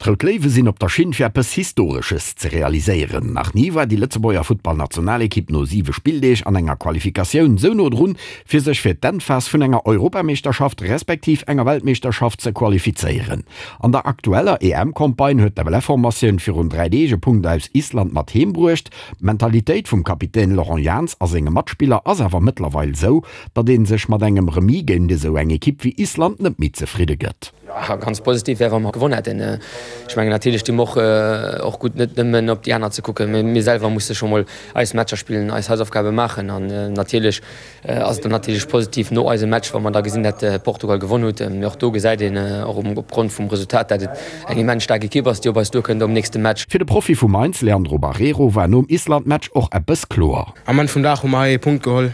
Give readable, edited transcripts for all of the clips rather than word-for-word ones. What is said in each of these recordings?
D'Rout Léiwe sinn op der Schinn fir eppes Historesches ze realiséieren. Nach ni war déi Lëtzebuerger Futtballnationalekipp no 7 Spilldeeg an enger Qualifikatioun sou no drun, fir sech fir d'Endphas vun enger Europameeschterschaft respektiv enger Weltmeeschterschaft ze qualifizéieren. An der aktueller EM-Campagne huet d'FLF-Formatioun virun 3 Deeg e Punkt aus Island mat heem bruecht. D'Mentalitéit vum Kapitän Laurent Jans a senge Matspiller ass awer mëttlerweil sou, datt ee sech mat engem Remis géint esou eng Ekipp wéi Island net méi zefridde gëtt. Jo, ganz positiv wär, wa mer gewonn hätten. Ech mengen, natierlech di mer och och gutt, net nëmmen op déi aner ze kucken. Mee mir selwer musse scho mol eis Matcher spillen, eis Hausaufgabe maachen. An natierlech ass et dann natierlech positiv no eisem Match, wa mer da gesinn, dat Portugal gewonn huet. Mee och do gesäit een och opgrond vum Resultat, dat et eng immens staark Ekipp ass, déi op eis duerkënnt am nächste Match. Fir de Profi vu Mainz, Leandro Barreiro, war nom Island-Match och eppes kloer. Am Enn vum Dag hu mer hei ee Punkt geholl.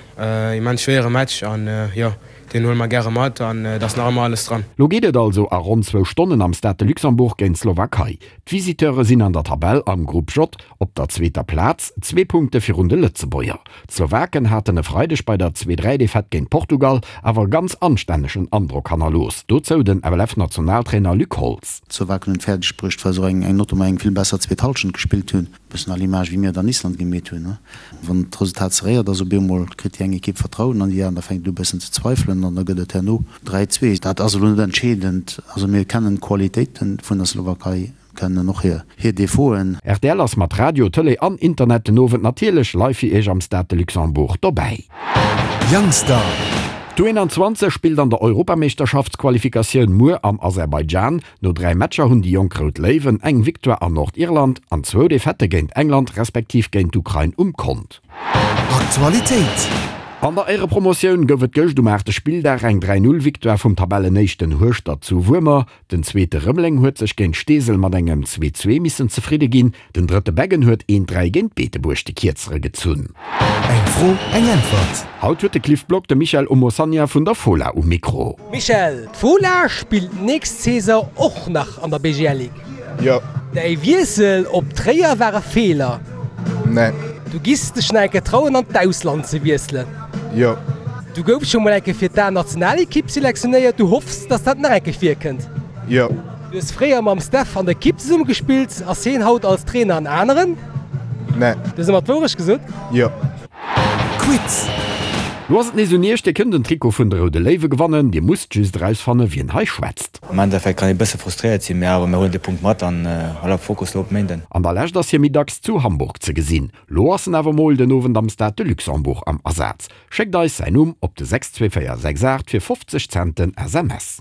Immens schwéiere Match an jo, Deen huele mer gäre mat an et ass nach ëmmer alles dran. Lo geet et also a ronn zwou Stonnen am Stade de Luxembourg géint d'Slowakei. D'Visiteure sinn an der Tabell am Grupp J op der zweeter Plaz, zwee Punkte virun de Lëtzebuerger. D'Slowaken haten e Freideg bei der Zwee-Dräi-Defaite géint Portugal awer e ganz anstännegen Androck hannerlooss. Dozou den FLF-Nationaltrainer Luc Holtz. D'Slowaken hunn et fäerdeg bruecht, well se och eng notamment eng vill besser zweet Hallschent gespillt hunn. Bëssen à l'image wéi mir et an Island gemeet hunn. Wann d'Resultat serréiert ass, op eemol kritt déi eng Ekipp Vertrauen an déi aner fänkt u bëssen ze zweifelen an da gëtt et herno 3, 2. Dat ass elo net entscheedend. Also mir kennen d'Qualitéite vun der Slowakei, kennen och hir Defauten. Rtl ass mat Radio, Tëlee an Internet den Owend natierlech live fir Iech am Stade de Luxembourg dobäi. Youngstar. D'U21 spillt an der Europameeschterschaftsqualifikatioun muer am Aserbaidschan. No 3 Matcher hunn déi jonk Rout Léiwen eng Victoire an Nordirland an zwou Defaitte géint England respektiv géint d'Ukrain um Kont. Aktualitéit. An der Éirepromotioun gouf et gëscht um aachte Spilldag eng 3, 0 Victoire vum Tabellenéischten Hueschtert zu Wuermer. Den zweete Rëmeleng huet sech géint Steesel mat engem 2, 2 missen zefridde ginn. Den drëtte Beggen huet een 3 géint Beetebuerg de Kierzere gezunn. Eng Fro, eng Äntwert. Haut huet de Cliff Block de Michel Omosanya vun der Fola um Mikro. Michel, d'Fola spillt nächst Saison och nach an der BGL Ligue. Jo. Däi Wiessel op Tréier war e Feeler. Nee. Du giss dech nach eng Kéier trauen an d'Ausland ze wiesselen. Jo. Du goufs scho mol eng Kéier fir d'A-Nationalekipp selektionéiert. Du hoffs, dass dat nach eng Kéier virkënnt. Jo. Du hues fréier mam Steph an der Ekipp zesumme gespillt. Ass hien haut als Trainer en aneren? Nee. Du hues ëmmer d'Wourecht gesot? Jo. Quiz. Lo ass et nees un iech, Dir kënnt en Trikot vun de Roude Léiwe gewannen. Dir musst just erausfanne wien hei schwätzt. Am Endeffekt kann ee bësse frustréiert sinn, mee awer mir huelen de Punkt mat an voilà, Fokus lo op Méinden. An der Lescht ass hie méi dacks zu Hamburg ze gesinn. Lo ass en awer mol den Owend am Stade de Luxembourg am Asaz. Schéckt eis säin Numm op de 62468 fir 50 Cent den SMS.